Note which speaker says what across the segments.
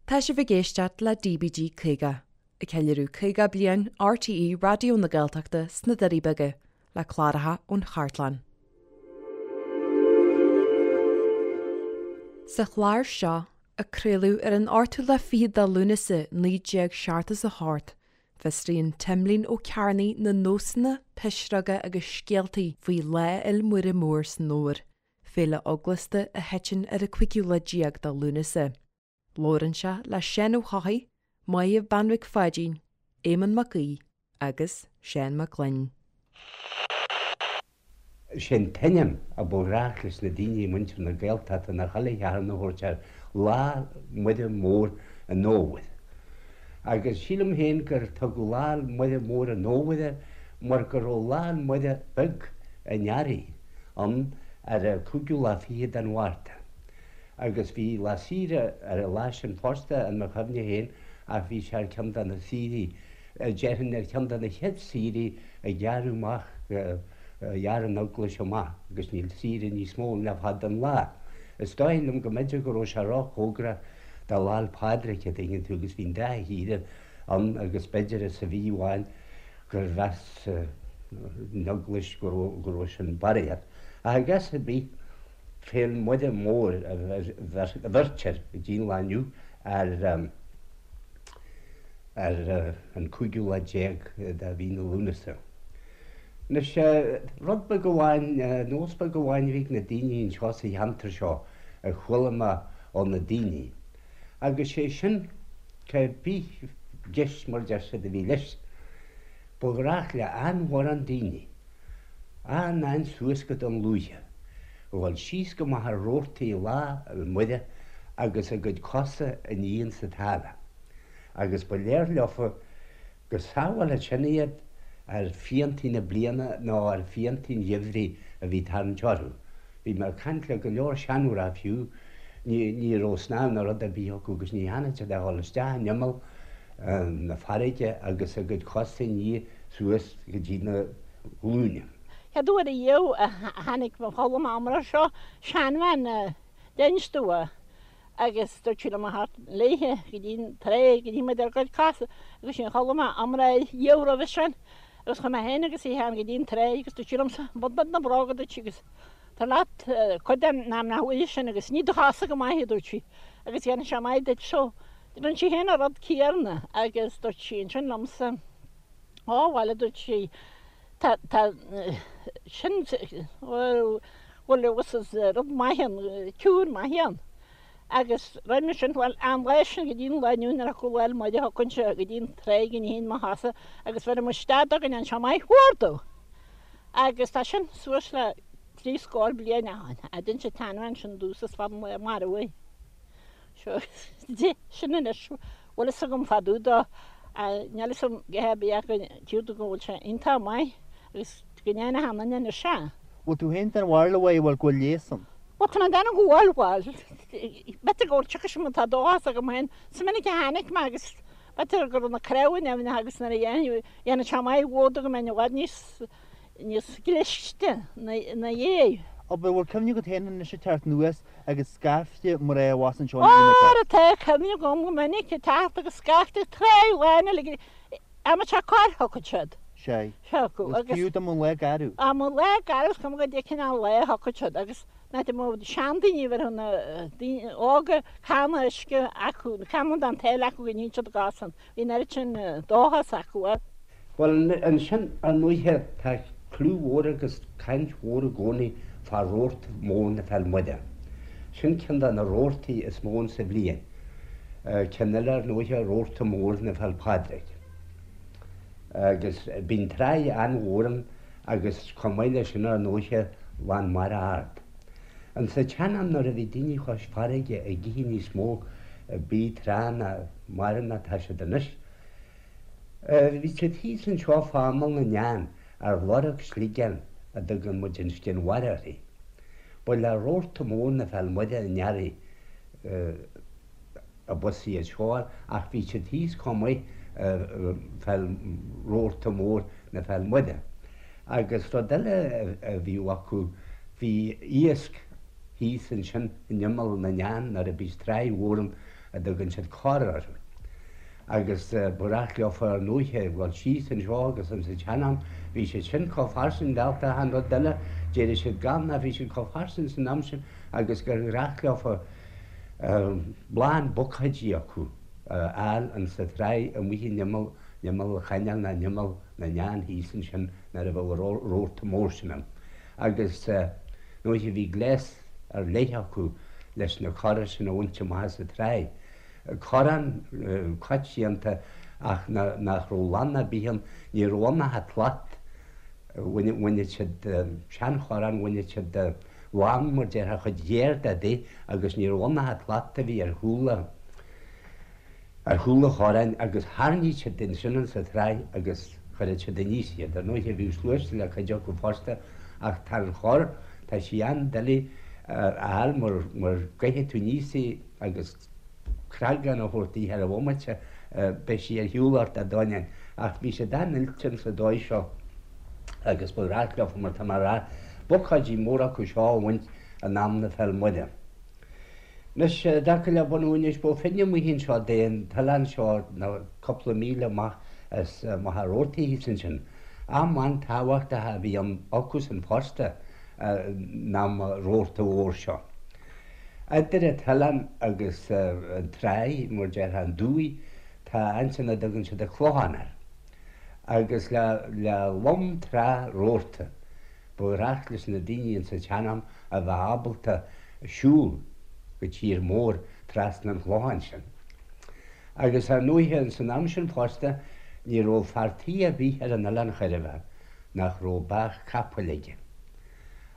Speaker 1: Tá sibh ag éisteacht le DBG 50, ag ceiliúradh 50 bliain RTÉ Raidió na Gaeltachta sna Doirí Beaga, le cláracha ón chartlann. Sa chlár seo, a craoladh ar an ochtú lá fichead de Lúnasa 1978, fiosraíonn Timlín Ó Cearnaigh na nósanna, pisreoga agus scéaltaí faoi Lá Fhéil Muire Mór san Fhómhar, féile eaglasta a thiteann ar an cúigiú lá déag de Lúnasa. Labhrann sé le Seán Ó hEochaidh, Maedhbh Bean Mhic Pháidín, Éamonn Mac Aoidh agus Seán Mac Gloinn.
Speaker 2: Sé an t-ainm a ba ghnách leis na daoine i muintir na Gaeltachta ná chuile Shatharn a thabhairt air, Lá Muire Mór an Fhómhair. Agus sílim féin gur tugadh Lá Muire Mór an Fhómhair air mar go raibh Lá Muire Beag an Earraigh ann ar an cúigiú lá fichead den Mhárta. Agus bhí lá saoire ar an lá sin fosta in mo chuimhne féin ach bhí sé ar cheann de na saoirí, déarfainn ar cheann de na chéad saoirí a gearradh amach, a ghearr an Eaglais amach agus níl saoire níos mó ann le fada an lá. Is dóigh liom go mb'fhéidir go raibh sé róchóngarach do Lá 'le Pádraig, a dtuigeann tú, agus bhí an dá shaoire ann agus b'fhéidir sa mhí amháin gur mheas an Eaglais go raibh sin barraíocht. Ach i gcás ar bith, Féil Muire Mór a bheirtear go dtí an lá inniu ar ar an cúigiú lá déag de mhí na Lúnasa. Anois, rud beag amháin, nós beag amháin a bhí ag na daoine anseo sa cheantar seo a chuala mé ó na daoine, agus sé sin, cé bith gist mar deir siad a bhí leis, ba ghnách le an-mhórán daoine, an-an suas go Dún Lúiche, a dhul síos go Machaire Rabhartaigh Lá 'le Muire agus a gcuid cosa a ní insa tsáile, agus ba léir leofa go sábhálfadh sin iad ar phiantaí na bliana nó ar phiantaí an gheimhridh a bhí ag tarraingt orthu. Bhí mé ag caint le go leor seanmhná fiú, ní raibh snámh ná rud ar bith acu agus ní dhearna siad ach dhul isteach in imeall na farraige agus a gcuid cosa a ní suas go dtí na glúine.
Speaker 3: Chéad uair ariamh a tháinig mo chodladh amach seo, seanbhean d'inis domh agus dúirt sí liom a theacht léithe go dtí an tráigh go nífeadh muid ár gcuid cosa agus sin chodlaigh mé amárach riamh roimhe sin agus chuaigh mé féin agus í féin go dtí an tráigh agus dúirt sí liomsa bain díot na bróga dúirt sí agus tar leat cuid den am nach bhfuil sin agus nigh do chosa go maith a dúirt sí agus dhéanfaidh sé maith duit so rinne sí féin an rud céanna agus dúirt sí ansin liomsa ó bhuel a dúirt sí tá tá sin bhuel bhuel is rud maith ann cure maith ann agus roimhe sin bhuel an lá sin go dtí an lá inniu nuair a thiocfadh Lá 'le Muire thiocfainnse go dtí an tráigh go nífinn mo chosa agus bheirim isteach dó go ndéanfaidh sé maith mhór domh. Agus tá sin suas le trí scór bliain ó shin a d'inis an tseanbhean sin domhsa is fada an lá marbh í. Seo sin anois bhfuil fhios agam fá dtaobh dó níl fhios agam go hé bith ach go dtír go bhfuil sé iontach maith agus go ndéana a sheanduine anois é.
Speaker 4: Bhfuil tú féin den bharúil a Mháire bhfuil go bhfuil leigheas ann?
Speaker 3: Bhuel tá mé ag déanamh go bhfuil, bhuel, b'fhéidir go bhfuil tiocfaidh sé má tá dóchas agam féin. Is minic a tháinig mé agus b'fhéidir go raibh na cnámha nimhneach agus nuair a dhéanfaidh, dhéanfaidh sé maith mhór go mbeinn i bhfad níos, níos cliste ina dhiaidh.
Speaker 4: Abair, bhfuil cuimhne agat féin anois ag teacht anuas agus scaifte mná abhus anseo in Éirinn
Speaker 3: Óra tá cuimhne agam go minic ag teacht agus scaifte tráigh lán uilig, Ama sé corr thiocfadh siad.
Speaker 4: Sea. Thiocfadh agus. Fiú dá mba lá garbh.
Speaker 3: Dá mba lá garbh is cuma goidé cineál lá thiocfadh siad agus ná dá mba seandaoine a bheadh na daoine óga canna uisce acu, canna den tsáile acu go nífeadh siad a gcosa ann. Bhí an oiread sin dóchas acu.
Speaker 2: Bhuel ansin ar ndóighe tá clú mhór agus caint mhór i gcónaí fá rabharta mór na Féil Muire. Sin ceann de na rabhartaí is mó insa bhliain. Ceann eile ar ndóighe rabharta mór na Féil Pádraig. Agus bíonn tráigh an-mhór ann agus chomh maith leis sin ar ndóighe lán mara ard. Insa tsean-am nuair a bhí daoine chois farraige ag ithe níos mó bídh tránna mara ná tá siad anois, bhí siad thíos anseo fá imeall na nEan ar lorg sligeáin a dtugann muid an scian mhara uirthi. Ba le rabharta mór na Féil Muire an earraigh abhus iad seo ach bhí siad thíos chomh maith fá rabharta mór na Féil Muire. Agus rud eile a bhíodh acu, bhí iasc thíos ansin in imeall na nEan nuair a bhíos tráigh mhór ann. a dtugann siad corr orthu. Agus ba ghnách leofa ar ndóiche dhul síos anseo agus insa tsean-am bhí siad sin chomh fairsing dálta achan rud eile, d'éirigh siad gann ach bhí siad chomh fairsing san am sin agus gur ghnách leofa lán bucáidí acu a fháil insa tráigh amuigh in imeall, in imeall an chainéil ná in imeall na nDeán thíos ansin nuair a bheadh an rabharta mór sin ann. Agus ndóiche bhí gléas ar leith acu leis na corra sin a bhaint amach as an tráigh. Corrán coitianta ach nach raibh lann ar bith ann, ní raibh ann ach an tslat. Bhaineadh siad seanchorrán, bhaineadh siad lann mar déarfá chuid ghéar de di agus ní raibh ann ach an tslat a bhí ar chúl ar chúl an chorráin agus tharraingíodh siad ansin insa tráigh agus chuireadh siad aníos iad. Ar ndóighe bhíodh sluaiste le cuid acu fosta ach tá an chorr, tá sí an-doiligh a fháil mar mar gcaithfidh tú aníos í agus creagán a thabhairt di ar an bhomaite beidh sí ar shiúl ort a dóineáin. Ach bhí siad an-oilte insa dóigh seo agus ba ghnách leofa mar tá mé a rá bucáidí móra acu seo a bhaint in am na Féil Muire. Anois, i dtaca le bunú Inis Bó Finne amuigh anseo de an t-oileán seo ná cúpla míle amach as Machaire Rabhartaigh thíos ansin. Am an-tábhachtach a bhí ann acusan fosta in am an rabharta mhóir seo. Idir an t-oileán agus an tráigh, mar déarfá, an dumhaigh, tá ansin a dtugann siad an Clochán air. Agus le le lom trá rabharta, Ba ghnách leis na daoine insa tsean-am a bheith ábalta siúl go tír mór trasna an chlocháin sin. Agus ar ndóighe insan am sin fosta ní raibh fear tí ar bith ar an oileán chor ar bith nach raibh beathach capaill aige.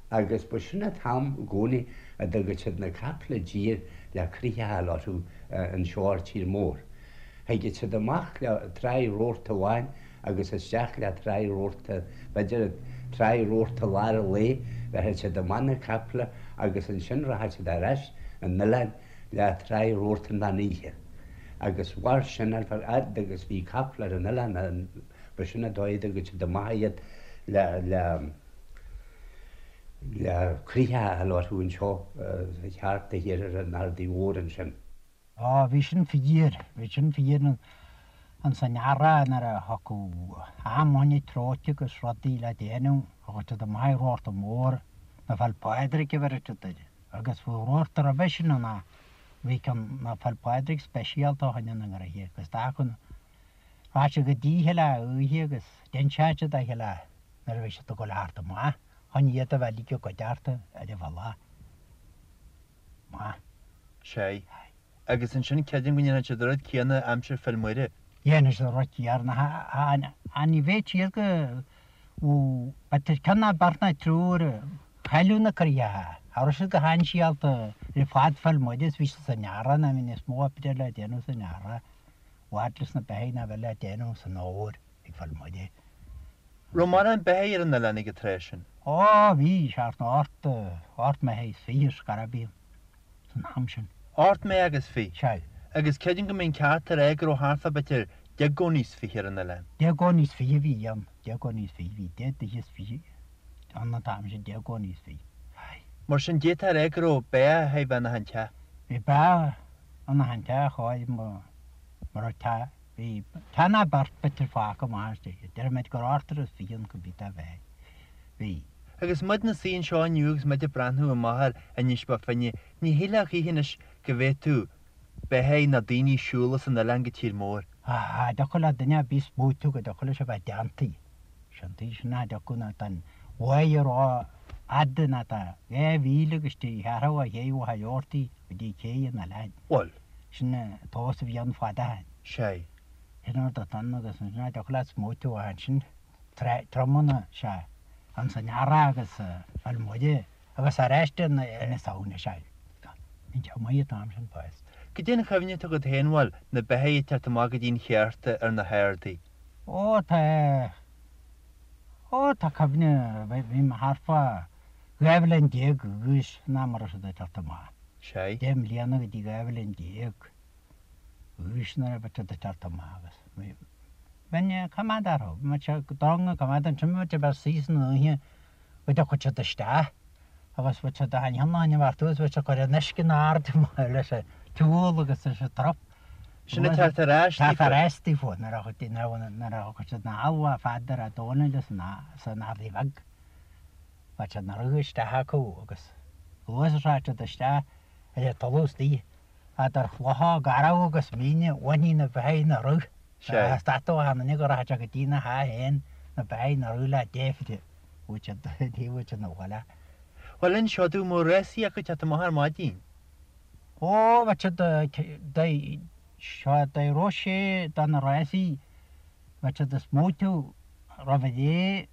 Speaker 2: Agus ba sin an t-am i gcónaí a dtugadh siad na capaill i dtír le croitheadh a fháil orthu anseo ar tír mór. Thigeadh siad amach le tráigh rabharta amháin agus isteach le tráigh rabharta, b'fhéidir tráigh rabharta lár an lae, bheadh siad amach na caiple agus ansin rachadh siad ar ais an oileáin le tráigh rabharta an mheán oíche. Agus mhair sin ar feadh fhad agus bhí caiple ar an oileán, ba sin an dóigh a dtugadh siad amach iad le, le, le croitheadh a fháil orthu anseo thart thiar ar an Ardaidh Mhór ansin.
Speaker 5: Á, bhí sin fíor, bhí sin fíor ins an earrach nuair a thiocfadh am fá choinne tróite agus rudaí le déanamh, thagadh siad amach ag rabharta mór, na Féil Pádraig a bheireadh siad air, agus bhí rabharta roimhe sin ann ach bhí ceann na Féil Pádraig speisialta fá choinne na ngraithe agus d'fhágfadh, rachadh siad go dtí chuile oíche agus d'inseodh siad a chéile nuair a bhí siad ag dul a theacht amach chun iad a bheith uilig i gcuideachta ar an bhealach. Maith.
Speaker 4: Sea. Agus ansin creidim go ndéanfadh siad an rud céanna aimsir Féil Muire.
Speaker 5: Dhéanfadh siad an rud céanna. Ach ní bheadh siad go b'fhéidir ceann ná beirt ná triúr a chailleadh na croitheacha. Cha raibh siad go hainséalta ar fad Féil Muire is bhí siad san earrach ná bhí níos mó oibre le déanamh san earrach i bhfad leis na beithígh ná bheith le déanamh san fhómhar ag Féil Muire.
Speaker 4: Raibh mórán beithígh ar an oileán ag an tráth sin?
Speaker 5: Ó, bhí, thart ná ocht, ocht mbeithígh is fiche ar scor ar bith san am sin.
Speaker 4: Ocht mbeathach agus fiche?
Speaker 5: Sea.
Speaker 4: Agus creidim go mbeinn ceart a rá go raibh thart fá b'fhéidir deich gcónaí is fiche ar an oileán.
Speaker 5: Deich gcónaí is fiche a bhí ann, deich gcónaí is fiche, bhí deich dtithe is fiche ann an t-am sin, deich gcónaí is fiche. Aye.
Speaker 4: Mar sin d'fhéadfá a rá go raibh beathach a bheith in achan teach.
Speaker 5: Bhí beathach in achan teach, chóir, mura raibh teach. Bhí teach ná beirt b'fhéidir fágtha amach istigh. Déarfaidh muid gur ochtar is fiche ann go mbí dá bheith. Bhí.
Speaker 4: Agus muid 'na suí anseo inniu agus muid ag breathnú amach ar Inis Bó Finne, ní shílfeá choíche anois go bhféadfadh beithígh ná daoine siúl as an oileán go tír mór.
Speaker 5: Cha dtiocfadh le duine ar bith smaoitiú go dtiocfadh leis a bheith déanta. Sin tuige sin nach dtiocfadh ná tá an mhaidh ró-fhada ná tá 2 mhíle agus trí cheathrú ó ché Mhachaire Rabhartaigh go dtí cé an oileáin.
Speaker 4: Bhuel.
Speaker 5: Sin an tomhas a bhí ann fad ó shin.
Speaker 4: Sea.
Speaker 5: Sin an rud atá ann agus ansin nach dtiocfadh leat smaoitiú ach ansin triomaíonn sé ins an earrach agus Féil Muire agus arís i na Samhna, sea. Bhí sé maith an t-am sin fosta.
Speaker 4: Goidé an chuimhne atá agat féin, bhuel, na beithígh ag teacht amach go dtí'n cheárta ar na hardaí.
Speaker 5: Ó tá, ó tá cuimhne, bhí mé thart fá 12 bhliain d'aois an am a raibh siad ag teacht amach.
Speaker 4: Sea.
Speaker 5: Deich mbliana go dtí 12 bhliain d'aois nuair a bhí siad ag teacht amach agus bhí, bheinn ag coimeád orthu, bhí muid ag drong ag coimeád ansin, bhí muid ag bheith suí san oíche go dtiocfadh siad isteach agus bhí siad ag an cheann a bheartú agus bhí siad ag cur an uisce in airde leis an. tsiúl agus tá siad trup.
Speaker 4: Sin ag teacht ar ais
Speaker 5: daofa. Teacht ar ais daofa nuair a thiocfadh siad na halbha Pheadair a' Dónaill san Ardaidh Bheag. Bheadh siad 'na rith isteach acu agus luath is a rachadh siad isteach ar an talamh istigh eadar chlocha garbh agus míne bhainfí na beithígh 'na rith.
Speaker 4: Sea.
Speaker 5: Stadfadh achan duine go rachadh sé go dtí na theach féin na beithígh 'na rith le deifre. Bhuaigh siad, ní bhuaigh siad 'na bhaile.
Speaker 4: Bhuel inis domh an mbeadh rásaí acu teacht amach ar maidin.
Speaker 5: Ó, bheadh siad, seo, dá raibh sé do na rásaí, bheadh siad ag smaoitiú roimh ré,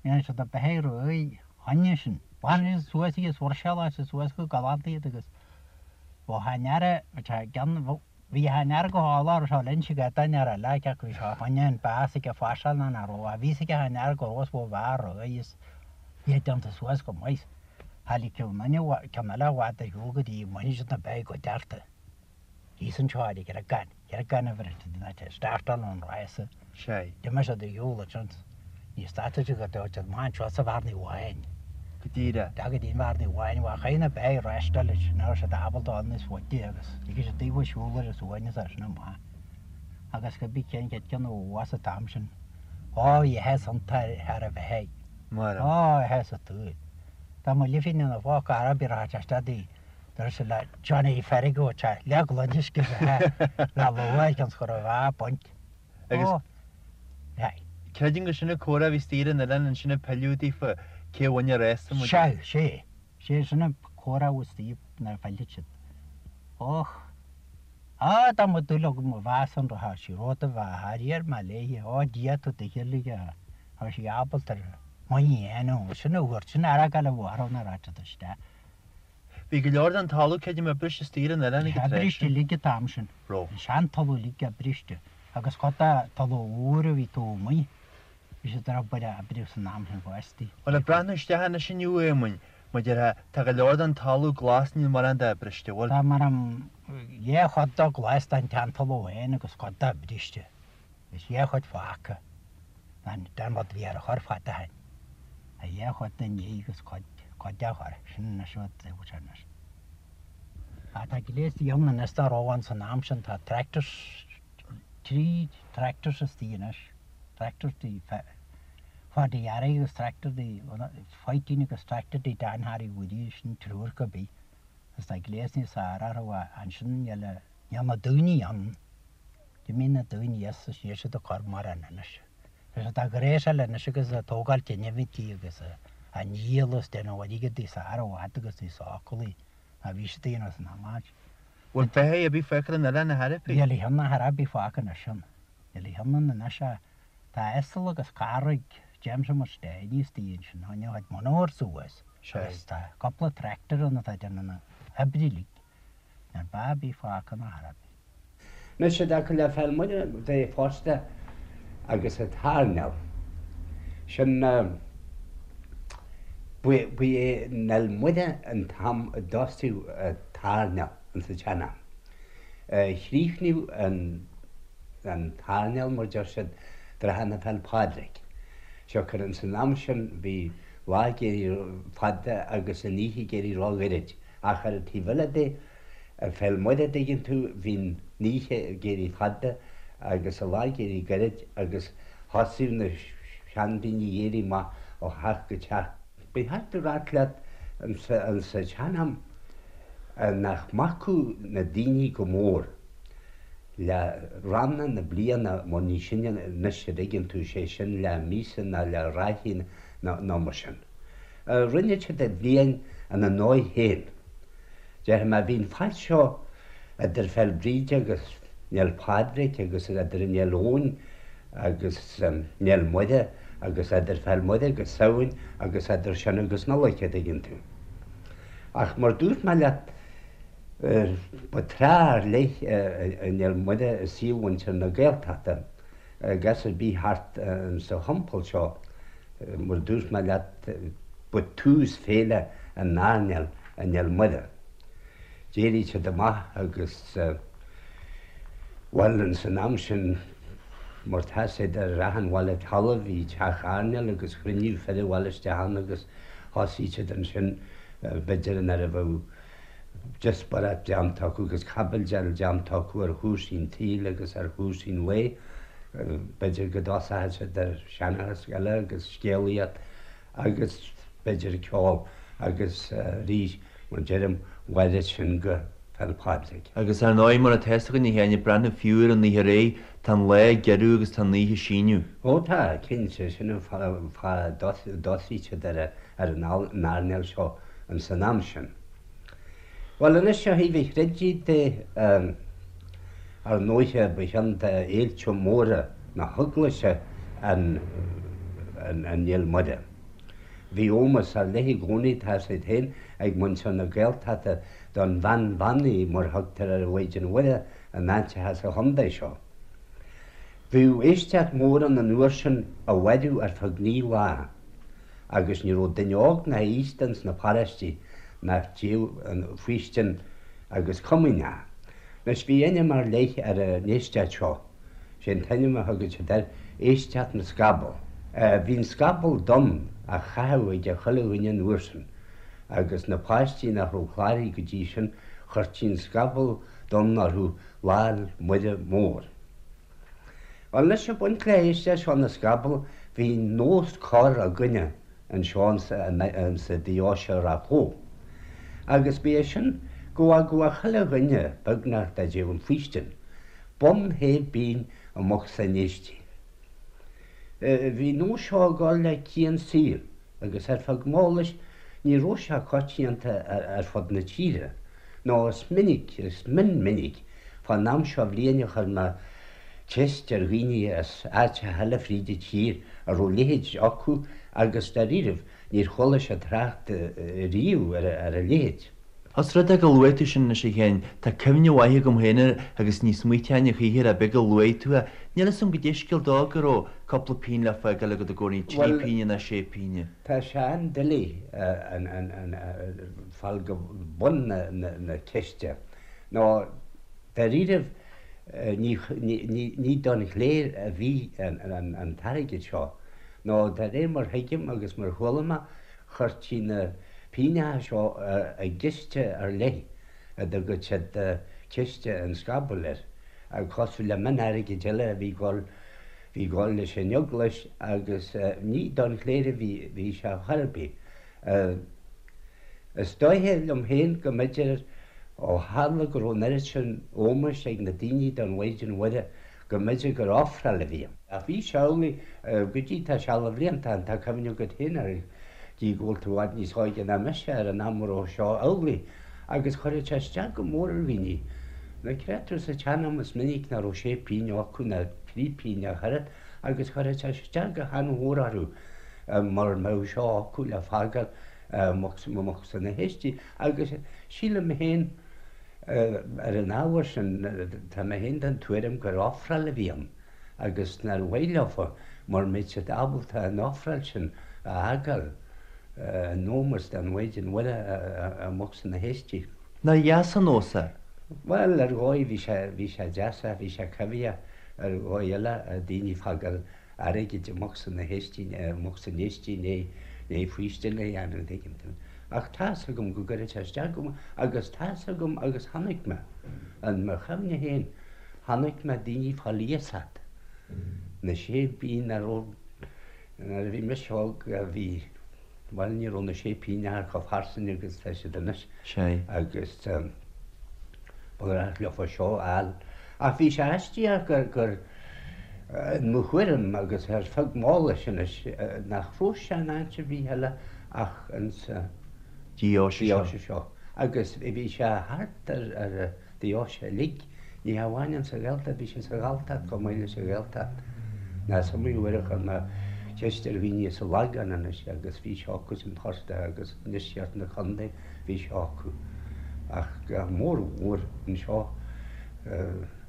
Speaker 5: dhéanadh siad na beithígh réidh choinne sin. Ghlanadh siad suas iad, bhruiseáladh siad suas go galánta iad agus bheadh an earra, bheadh sé i gceann, bhí an earra go hálainn, raibh sé linn ag an earra eile, cé acu bhí sé choinne an bás ag fásáil ná nach raibh, bhí fhios ag an earra go raibh is bheadh fear réidh is iad déanta suas go maith. Tháinig ceann eile i bhfad ar shiúl go dtí go mbainfidh siad na beithígh go dearta. Thíos anseo ar an gCreagán, Creagán a bheireann siad in áit a startáil an rása.
Speaker 4: Sea.
Speaker 5: D'imigh siad ar shiúl ansin. Ní stadfaidh siad go dtí siad amach anseo sa Bhearnaí Bháin.
Speaker 4: Go díreach.
Speaker 5: Go dtí an Bhearnaí Bháin, bhuel chaith na beithígh reáchtáil leis, ní raibh siad ábalta dul níos faide agus lig siad daofa siúl ar a suaimhneas as sin amach. Agus go bí cén chéad ceann ó bhás an t-am sin. Ó, bhí áthas iontu thar a bheith.
Speaker 4: Mar.
Speaker 5: Á, a sheas tú. Dá mba lifín ina phóca araib a raibh sé isteach dúirt sé le Johnny Fergo te le gloine uisce le luaith cionn 's go raibh a baint.
Speaker 4: Agus
Speaker 5: Ó, hey.
Speaker 4: creidim gur sin an comhrá a bhí istigh ar an oileán ansin ag pilleadh daofa cé a bhain an rása muid.
Speaker 5: Sea, sé. Sé sin an comhrá a bhí istigh nuair a phillfeadh siad. Och. Á, dá mba dúil agam a mheas an raibh sí rud a bheadh thar iar mé léi. Ó, Dia tú do shíolraigh a. Tá sí ábalta ar muinín a dhéanamh, sin a thabhairt, sin airgead a bharra na ráite isteach.
Speaker 4: Bhí go leor den talamh creidim oibriste istigh ar an oileán ag an tráth
Speaker 5: sin. Oibriste uilig an t-am sin.
Speaker 4: Raibh.
Speaker 5: An sean-talamh uilig oibriste agus cuid de talamh úr a bhí taobh amuigh, bhí siad ar obair a oibriú san am sin fosta.
Speaker 4: Bhuel, ag breathnú isteach anois inniu, a Éamoinn, mar a déarfá, tá go leor den talamh glas, níl mórán de oibriste, bhfuil?
Speaker 5: Tá mar an dhá chuid de glas den tsean-talamh féin agus cuid de oibriste. Is dhá chuid fágtha. Den rud a bhí ar a chur fada ó shin. A dhá chuid den ní agus cuid, cuid dá chur. Sin anois rud a bhfuil sé anois. Ach tá gléas ann anois dá raibh ann san am sin. Tá tractors, trí tractors istigh anois. Tractor do Pháidí Harry agus tractor do Pháidín agus tractor do Dan Harry Woody, sin triúr go bith. Agus tá gléas níos fearr orthu ansin níl, níl na daoine ann. D'imigh na daoine as is níl siad ag cur mórán anois. Tá siad á ghréasáil anois agus ag tógáil teinimintí agus á ndíol is déanamh airgead níos fearr i bhfad agus níos sócúlaí ná bhí siad a dhéanamh san am ait.
Speaker 4: Bhfuil beithígh ar bith fágtha ar an oileán a thairbhí?
Speaker 5: Níl a cheann a thairbhí fágtha anois ann. Níl a cheann ann anois ach tá asal agus carraig Jameson mar stéiní istigh ansin. Tháinig a chuid monabhar suas agus tá cúpla tractor ann atá ag déanamh na hoibre uilig. Níl beá ar bith fágtha ná thairbhí.
Speaker 2: Anois i dtaca le Féil Muire de fosta agus an t-airneál sin ba é an Fhéil Muire an t-am a dtosaíodh an t-airneál ins an tsean-am. Chríochnaíodh an t-airneál mar deir siad trátha na Féil Pádraig. Siocair ins an am sin bhí lá ag éirí fada agus an oíche ag éirí ró-ghoirid ach ar an taobh eile de Ar Féil Muire, dtuigeann tú, bhí an oíche ag éirí fada agus an lá ag éirí gairid agus thosaíodh na seandaoine ag éirí amach ó theach go teach. Ba cheart a ráit leat insa tsean-am nach mbacadh na daoine go mór le ranna na bliana mar ní sin anois a dtuigeann tú, sé sin le míosa ná le ráithí ná mar sin. Rinne siad an bhliain ina ndóigh féin. Déarfaidh mé, bhí an fad seo idir Féil Bríde agus an Fhéil Pádraig agus idir an Fhéil Eoin agus an Fhéil Muire agus idir Féil Muire agus Samhain agus idir sin agus Nollaig, a dtuigeann tú. Ach mar dúirt mé leat, ba tráth ar leith an Fhéil Muire i saol mhuintir na Gaeltachta agus ar bith thart sa thimpeall seo, mar dúirt mé leat, ba tús féile an airneáil an Fhéil Muire. D'éirigh siad amach agus, bhuel, ins an am sin, mar tá 'fhios a'd ar achan bhaile talaimh bhí teach airneáil agus chruinníodh fir an bhaile isteach ann agus thosaigh siad ansin, b'fhéidir nuair a bheadh. díospóireacht déanta acu agus caibidil déanta acu ar chúrsaí an tsaoil agus ar chúrsaí an lae. B'fhéidir go dtosódh siad ar sheanchas eile agus scéalaíocht agus b'fhéidir ceol agus arís, mar a deirim, mhaireadh sin go Féil' Pádraig.
Speaker 4: Agus ar ndóigh, mar atá fhios againn a Sheáin, ag breathnú fiú ar an oíche aréir, tá an lá ag giorrú agus tá an oíche ag síneadh.
Speaker 2: Ó tá, cinnte, sin an fáth a dtosaíonn siad ar an airnéal seo ins an am sin. Bhuel anois ó thaobh an chreidimh de, ar ndóighe ba cheann de fhéilte móra na hEaglaise an Fhéile Muire. Bhí ómós ar leith i gcónaí, tá 'fhios agat féin, ag muintir na Gaeltachta don bhean bheannaithe mar thugtar ar an Mhaighdean Mhuire in áiteacha sa chontae seo. Bhíodh éisteacht mhór ann an uair sin a mhaireadh ar feadh 9 lá. agus ní raibh duine óg ná aosta ins na paráistí nach dtéadh an faoistin agus comaoineach. Anois bhí ainm ar leith ar an éisteacht seo, sé an t-ainm a thugadh siad air, Éisteacht na Scaball. Bhí an scaball donn á chaitheamh ag chuile dhuine an uair sin, agus na páistí nach raibh cláraithe go dtí sin, chuirtí an scaball donn orthu Lá'l Muire Mór. Bhuel anois ag baint le héisteacht seo na scaball bhí nós corr againne anseo insa deoise Ráth Bhoth. Agus ba é sin go bhfágadh chuile dhuine, beagnach, dá dtéadh an faoistin, bonn shé bpínn i mbocsa an éistigh. Bhí an nós seo ag dul le cian saoil agus ar feadh m'eolais ní raibh sé coitianta ar fud na tíre, nó is minic, is mion minic, fán am seo bhliain a chuir mé ceist ar dhaoine as áiteacha eile fríd an tír a raibh a leithéid acu agus dáiríribh níor chuala siad trácht riamh ar a leithéid.
Speaker 4: Os rud é go luaigh tú sin anois a Sheáin, tá cuimhne mhaith agam féin air agus ní smaointeoinn a choíche air ach b'é go luaigh tú é. Níl fhios agam goidé scéal dó go raibh cúpla pínn le fágáil agat i gcónaí, trí pínne nó sé pínne.
Speaker 2: Tá sé an-doiligh fáil go bun na ceiste. Nó dáiríribh ní don chléir a bhí an t-airgead seo. Nó de réir mar thuigim agus mar chuala mé, chuirtí na pínneacha seo i gciste ar leith a dtugadh siad ciste an scabaill air, cosúil le mion-airgead eile a bhí ag dul bhí ag dul leis an eaglais agus ní don chléir a bhí sé chor ar bith. Is dóiche liom féin go mb'fhéidir ó tharla go raibh an oiread sin ómóis ag na daoine don Mhaighdean Mhuire go mb'fhéidir gur ofráil a bhí ann. Ach bhí sé amhlaidh go dtí tá seal de bhlianta ann, tá cuimhne agat féin air, gí go bhfuil tú i bhfad níos óige ná mise, ar an am a raibh seo amhlaidh agus chuireadh sé isteach go mór ar dhaoine. Nó creid tú sa tsean-am is minic nach raibh sé pínn acu ná trí pínn ach oiread agus chuireadh sé isteach go han-mhór orthu mura mbeadh seo acu le fágáil i mbocsa na héistigh agus sílim féin ar an ábhar sin tá mé féin den tuairim gur ofráil a bhí ann agus nár mhaith leofa mura mbeadh siad ábalta an ofráil sin a fhágáil in ómós don Mhaighdean Mhuire i mbocsa na héistigh.
Speaker 4: Nár dheas an nós é?
Speaker 2: Bhuel, ar dhóigh bhí sé, bhí sé deas ach bhí sé coimhthíoch ar dhóigh eile, daoine ag fágáil airgid i mbocsa na héistigh, i mbocsa an éistigh i ndiaidh faoistin a dhéanamh, an dtuigeann tú. Ach tá's agam go gcuireadh sé isteach go mór agus tá's agam agus chonaic mé, in mo chuimhne féin, chonaic mé daoine ag fáil iasacht na sé pínn nach raibh, nuair a bhí mise óg bhí, Bhuel, ní raibh na sé pínneacha chomh fairsing agus tá siad anois.
Speaker 4: Sea.
Speaker 2: Agus ba ghnách leofa seo a fháil. Ach bhí sé aisteach gur, gur, in mo thuairim agus ar feadh m'eolais anois, nach raibh sé in áit ar bith eile ach insa
Speaker 4: Deoise seo.
Speaker 2: deoise seo. Agus bhí sé thart ar, ar an deoise uilig. Ní hamháin insa Ghaeltacht, bhí sé sa Ghalltacht chomh maith leis an Ghaeltacht. Nó is iomaí uair a chuir mé ceist ar dhaoine as an Lagán anois agus bhí sé acu sin fosta agus i ndeisceart na contae bhí sé acu. Ach go mór mhór anseo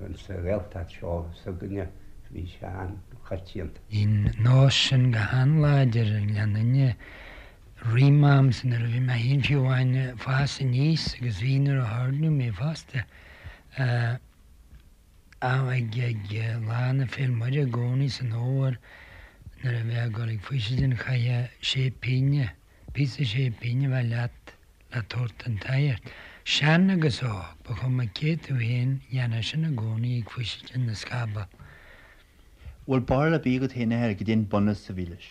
Speaker 2: insa Ghaeltacht seo s'againne bhí sé an-choitianta.
Speaker 6: Bhí an nós sin go han-láidir i nGleann Fhinne Roimh m'amsa nuair a bhí mé féin fiú amháin ag fás aníos agus bhí nuair a hoirníodh mé fosta, ag ag lá na Féil Muire i gcónaí san fhómhar nuair a bheifeá ag dul ag faoisidin chaithfeá sé pínne, píosa sé pínne a bheith leat le tabhairt don tsagart. Sean agus óg, ba chuma cé tú féin, dhéanfá sin i gcónaí ag Faoisidin na Scaball.
Speaker 4: Bhfuil barúil ar bith agat féin a athair goidé an bunús a bhí leis?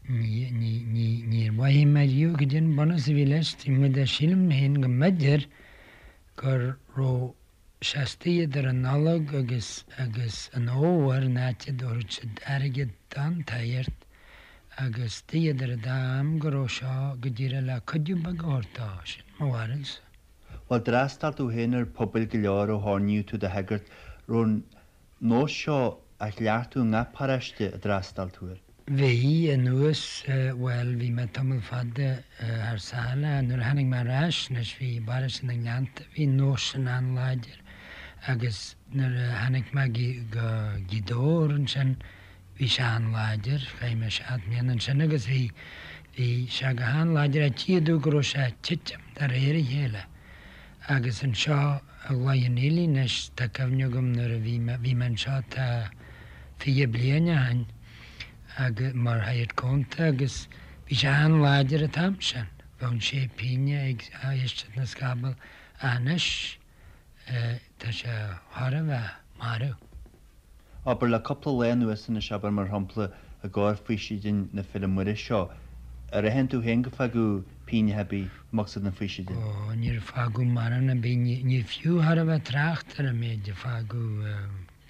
Speaker 6: Ní, ní, ní, níor mhothaigh mé riamh goidé an bunús a bhí leis, taobh amuigh de sílim féin go mb'fhéidir go raibh sé istigh idir an Nollaig agus, agus an Fhómhar an áit a dtabharfadh siad airgead don tsagart agus istigh idir an dá am go raibh seo go díreach le cuidiú beag a thabhairt dó, sin mo bharúilsa.
Speaker 4: Bhuel, d'fhreastail tú féin ar phobail go leor ó hoirníodh tú i do shagart, raibh an nós seo á chleachtadh i ngach paróiste a d'fhreastail tú air?
Speaker 6: Bhí, anuas, bhuel, bhí mé tamall fada thar sáile. Nuair a tháinig mé ar ais anois, bhí i bparóiste na nGleannta, bhí an nós sin an-láidir agus nuair a tháinig mé go Gaoth Dobhair ansin, bhí sé an-láidir, chaith mé seacht mbliana ansin agus bhí, bhí sé go han-láidir ach tchífeá go raibh sé ag titim de réir a chéile agus anseo i gCloich Cheann Fhaola anois, tá cuimhne agam nuair a bhí mé, bhí mé anseo tá 20 bliain ó shin agus, mar shagart cúnta agus bhí sé an-láidir an t-am sin, bheadh an sé pínne ag éisteacht na scaball ach anois tá sé chóir a bheith marbh.
Speaker 4: Abair, le cúpla lá anuas anois, abair, mar shampla, i gcomhair Faoisidin na Féile Muire seo, ar aithin tú féin gur fágadh pínneacha ar bith amuigh sna Faoisidin?
Speaker 6: Ó, níor fágadh mórán ar bith, ní fiú chóir a bheith trácht ar an méid a fágadh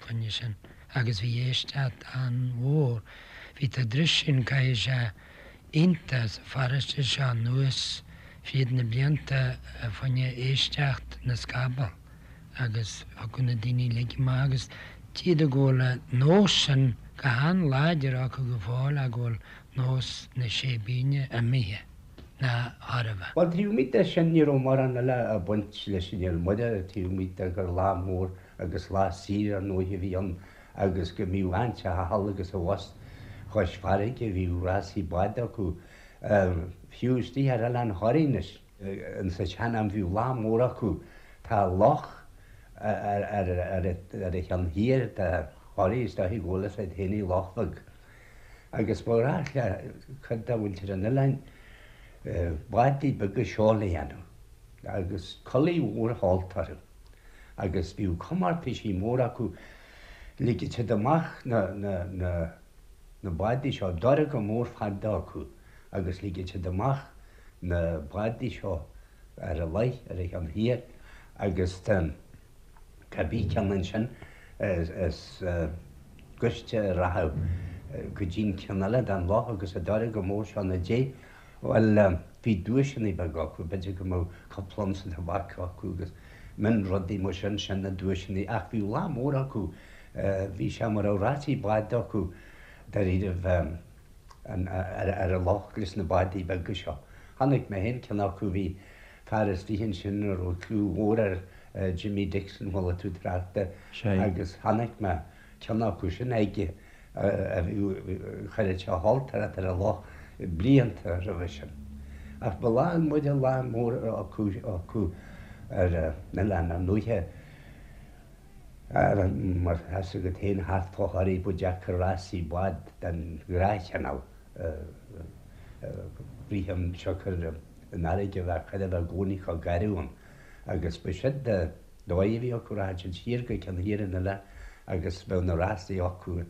Speaker 6: fá choinne sin agus bhí éisteacht an-mhór. Bhí tá dris sin caithfidh sé iontach sa pharóiste seo anuas fríd na blianta fá choinne éisteacht na scaball. agus thiocfadh na daoine uilig amach agus tchífeá go bhfuil an nós sin go han-láidir acu go fóill ach go bhfuil nós na sé bpínne imithe ná chóir a bheith.
Speaker 2: Bhuel, taobh amuigh de sin, ní raibh mórán eile ag baint leis an Fhéile Muire, taobh amuigh de gur lá mór agus lá saoire ar ndóigh a bhí ann agus go mbíodh an-teach thall agus abhus chois farraige, bhíodh rásaí bád acu, fiú istigh ar Oileán Thoraí anois. Insa tsean-am bhíodh lá mór acu. Tá loch ar ar a cheann thiar de Thoraigh is dóichí go bhfuil fhios agat féin í Loch Bheag. Agus ba ghnách le cuid de mhuintir an oileáin bádaí beaga seoil a dhéanamh agus culaith mhór sheolta orthu. Agus bhíodh comórtaisí móra acu. Ligeadh siad amach na na na na bádaí seo, dorcha mór fada acu agus ligeadh siad amach na bádaí seo ar an loch ar a cheann thiar agus cibé ceann ansin is gaiste a rachadh go dtí'n ceann eile den loch agus an dorcha mór seo ina diaidh. Bhuel, bhí duaiseanna beaga acu, b'fhéidir go mbeadh cúpla unsa tobac acu agus mion-rudaí mar sin, sin na duaiseanna ach bhí lá mór acu, bhí sé mar a bheadh rásaí bád acu dáiríribh. ar an loch leis na bádaí beaga seo. Chonaic mé féin ceann acu, bhí fear istigh ansin a raibh clú mhór air, Jimmy Dixon, chuala tú trácht air, agus chonaic mé ceann acu sin aige a bhí, chuireadh sé a shoilteoireacht ar an loch blianta roimhe sin. Ach ba Lá Muire lá mór acu ar an oileán, ar ndóighe. Mar tá 'fhios agat féin thart fá Thoraigh ba deacair rásaí bád den ghnáthchineál a rith ann siocair an fharraige a bheith chóir a bheith i gcónaí chomh garbh ann agus ba sin an dóigh a bhí acu rachadh siad siar go ceann thiar an oileáin agus bheadh na rásaí acu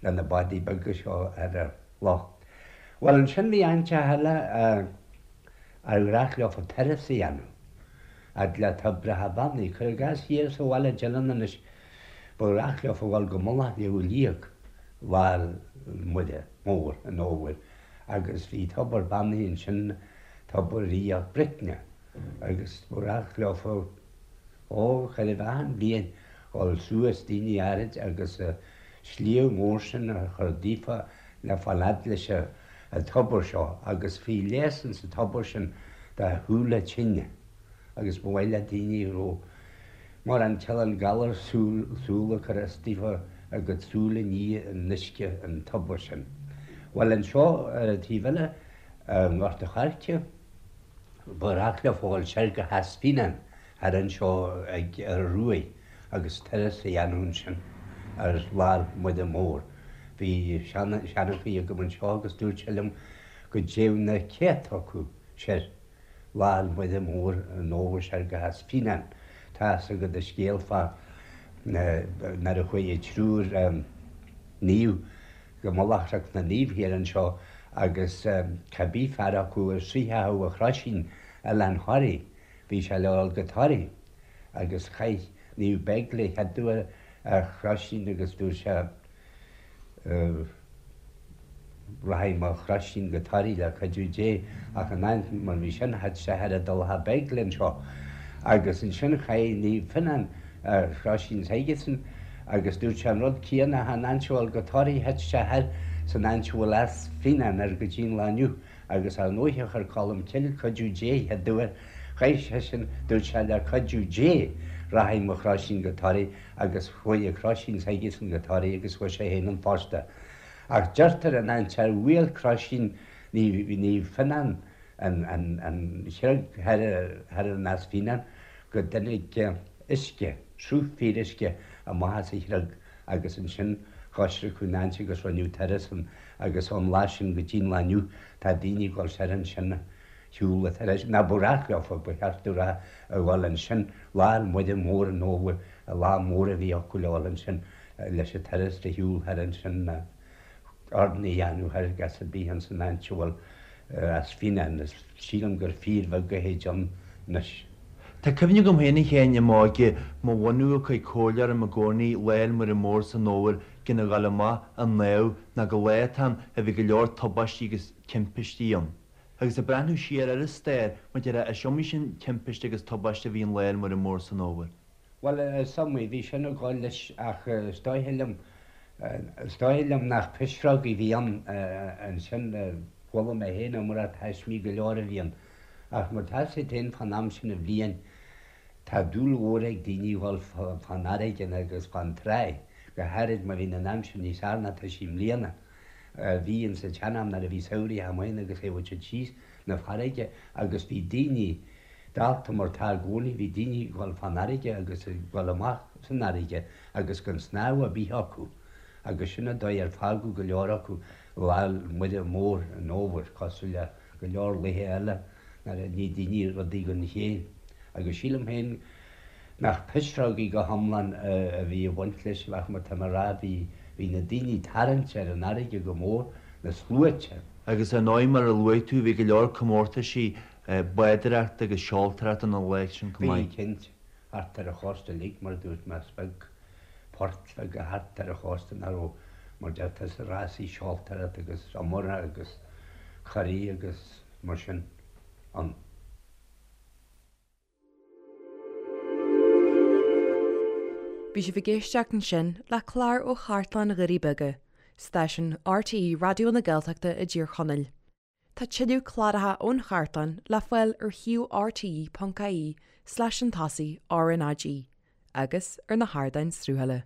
Speaker 2: le na bádaí beaga seo ar an loch. Bhuel ansin bhí áiteacha eile ar ghnách leofa turas a dhéanamh. Fhad le toibreacha beannaithe. Cuir i gcás thiar sa bhaile Dillon anois, ba ghnách leofa dhul go Mullach Shliabh Liag Lá Muire Mór an Fhómhair agus bhí tobar beannaithe ansin, tobar Ríocht Bricne, agus ba ghnách leofa, ó, chóir a bheith achan bhliain, dhul suas daoine áirid agus an sliabh mór sin a chur daofa le fáil fhad leis an tobar seo agus bhí leigheas ins an tobar sin do shúile tinne agus ba mhaith le daoine a raibh mórán cineál galar súl ag cur as daofa a gcuid súl a ní in uisce an tobair sin. Bhuel anseo ar an taobh eile i nGort a' Choirce ba ghnách leofa dhul soir go hEas Fíneáin thar anseo ag ar an Ruaidh agus turas a dhéanamh ansin ar Lá Muire Mór. Bhí seanchaí agam anseo agus dúirt sé liom go dtéadh na céadta acu soir. Lá 'le Muire Mór an Fhómhair soir go hEas Fíneáin. Tá fhios agat an scéal fá nuair a chuaigh an triúr naomh go mullach Chnoc na Naomh thiar anseo agus cá bith fear acu a shroichfeadh a chroisín Oileán Thoraí, bhí sé le dhul go Toraigh agus chaith Naomh Beigle a chéaduair a chroisín agus dúirt sé Rachaidh mo chroisín go Toraigh le cuidiú Dé ach in áit mar bhí sin thit sé thar an dTulach Beigle anseo agus ansin chaith Naomh Fionnán a chroisín s'aigesan agus dúirt sé an rud céanna ach in áit a dhul go Toraigh thit sé thoir san áit a bhfuil Eas Fíneáin air go dtí an lá inniu agus ar ndóighe chuir Colm Cille cuidiú Dé chéaduair chaith seisean dúirt sé le cuidiú Dé rachaidh mo chroisín go Toraigh agus chuaigh a chroisín s'aigesan go Toraigh agus chuaigh sé féin ann fosta. Ach deirtear an áit ar bhuail croisín Naomh Fionnán an chreag thoir in Eas Fíneáin go dtáinig uisce, sruth fíoruisce amach as an chreag agus ansin choisriceadh an áit agus rinneadh turas ann agus ón lá sin go dtí an lá inniu tá daoine ag dul soir ansin shiúl an turas, nó ba ghnách leofa, ba cheart domh a rá, a dhul ansin Lá 'le Muire Mór an Fhómhair, an lá mór a bhí acu le dhul ansin leis an turas de shiúl thoir ansin, urnaí a dhéanamh thoir gas ar bith ins an áit a bhfuil Eas Fíneáin, is sílim gur fíorbheag a théid ann anois.
Speaker 4: Tá cuimhne agam féin a Sheáin i m'óige, mo bhunadh ag cur comhairle orm i gcónaí Lá 'le Muire Mór san Fhómhar gan a ghabháil amach an naomh ná go lá atá ann a bhí go leor tubaistí agus timpistí ann. Agus ag breathnú siar ar an stair, mar a déarfá, is iomaí sin timpiste agus tubaiste a bhí an Lá 'le Muire Mór san Fhómhar.
Speaker 2: Bhuel, is iomaí, bhí sin ag dul leis ach is dóiche liom, is dóiche liom nach pisreogaí a bhí ann ansin, chuala mé féin iomrá taismí go leor a bhí ann. Ach mar tá 'fhios agat féin fán am sin de bhliain, tá dúil mhór ag daoine dhul fán fharraige agus fán tráigh, go háirid má bhíonn an aimsir níos fearr ná tá sí i mbliana. Bhí ins an tsean-am nuair a bhí samhraidh amuigh ann agus théadh siad síos 'na farraige agus bhí daoine, dálta mar tá i gcónaí, bhí daoine ag dul fán fharraige agus ag dul amach san fharraige agus gan snámh ar bith acu agus sin an dóigh ar fágadh go leor acu Lá 'le Muire Mór an Fhómhair, cosúil le go leor laethe eile nuair a ní daoine rudaí gan chéill. Agus sílim féin nach pisreogaí go hiomlán a bhí ag baint leis ach mar tá mé a rá bhí bhí na daoine tarraingte ar an fharraige go mór, na sluaite.
Speaker 4: Agus ar ndóigh mar a luaigh tú bhí go leor comórtaisí bádóireachta agus seoltóireachta an lá sin chomh
Speaker 2: Bhí, cinnte, thart ar an chósta uilig mar a dúirt mé is beag port bheag thart ar an chósta nach raibh mar deirtear sa rásaí seoltóireachta agus iomartha agus curaí agus mar sin ann.
Speaker 1: Bhí sibh ag éisteacht ansin le clár ó Chartlann Dhoirí Beaga, stáisiún RTÉ Raidió na Gaeltachta i dTír Chonaill. Tá tuilleadh cláracha ón chartlann le fáil ar shuíomh rte.ie slash an tosaigh RnaG agus ar na hardáin sruthála.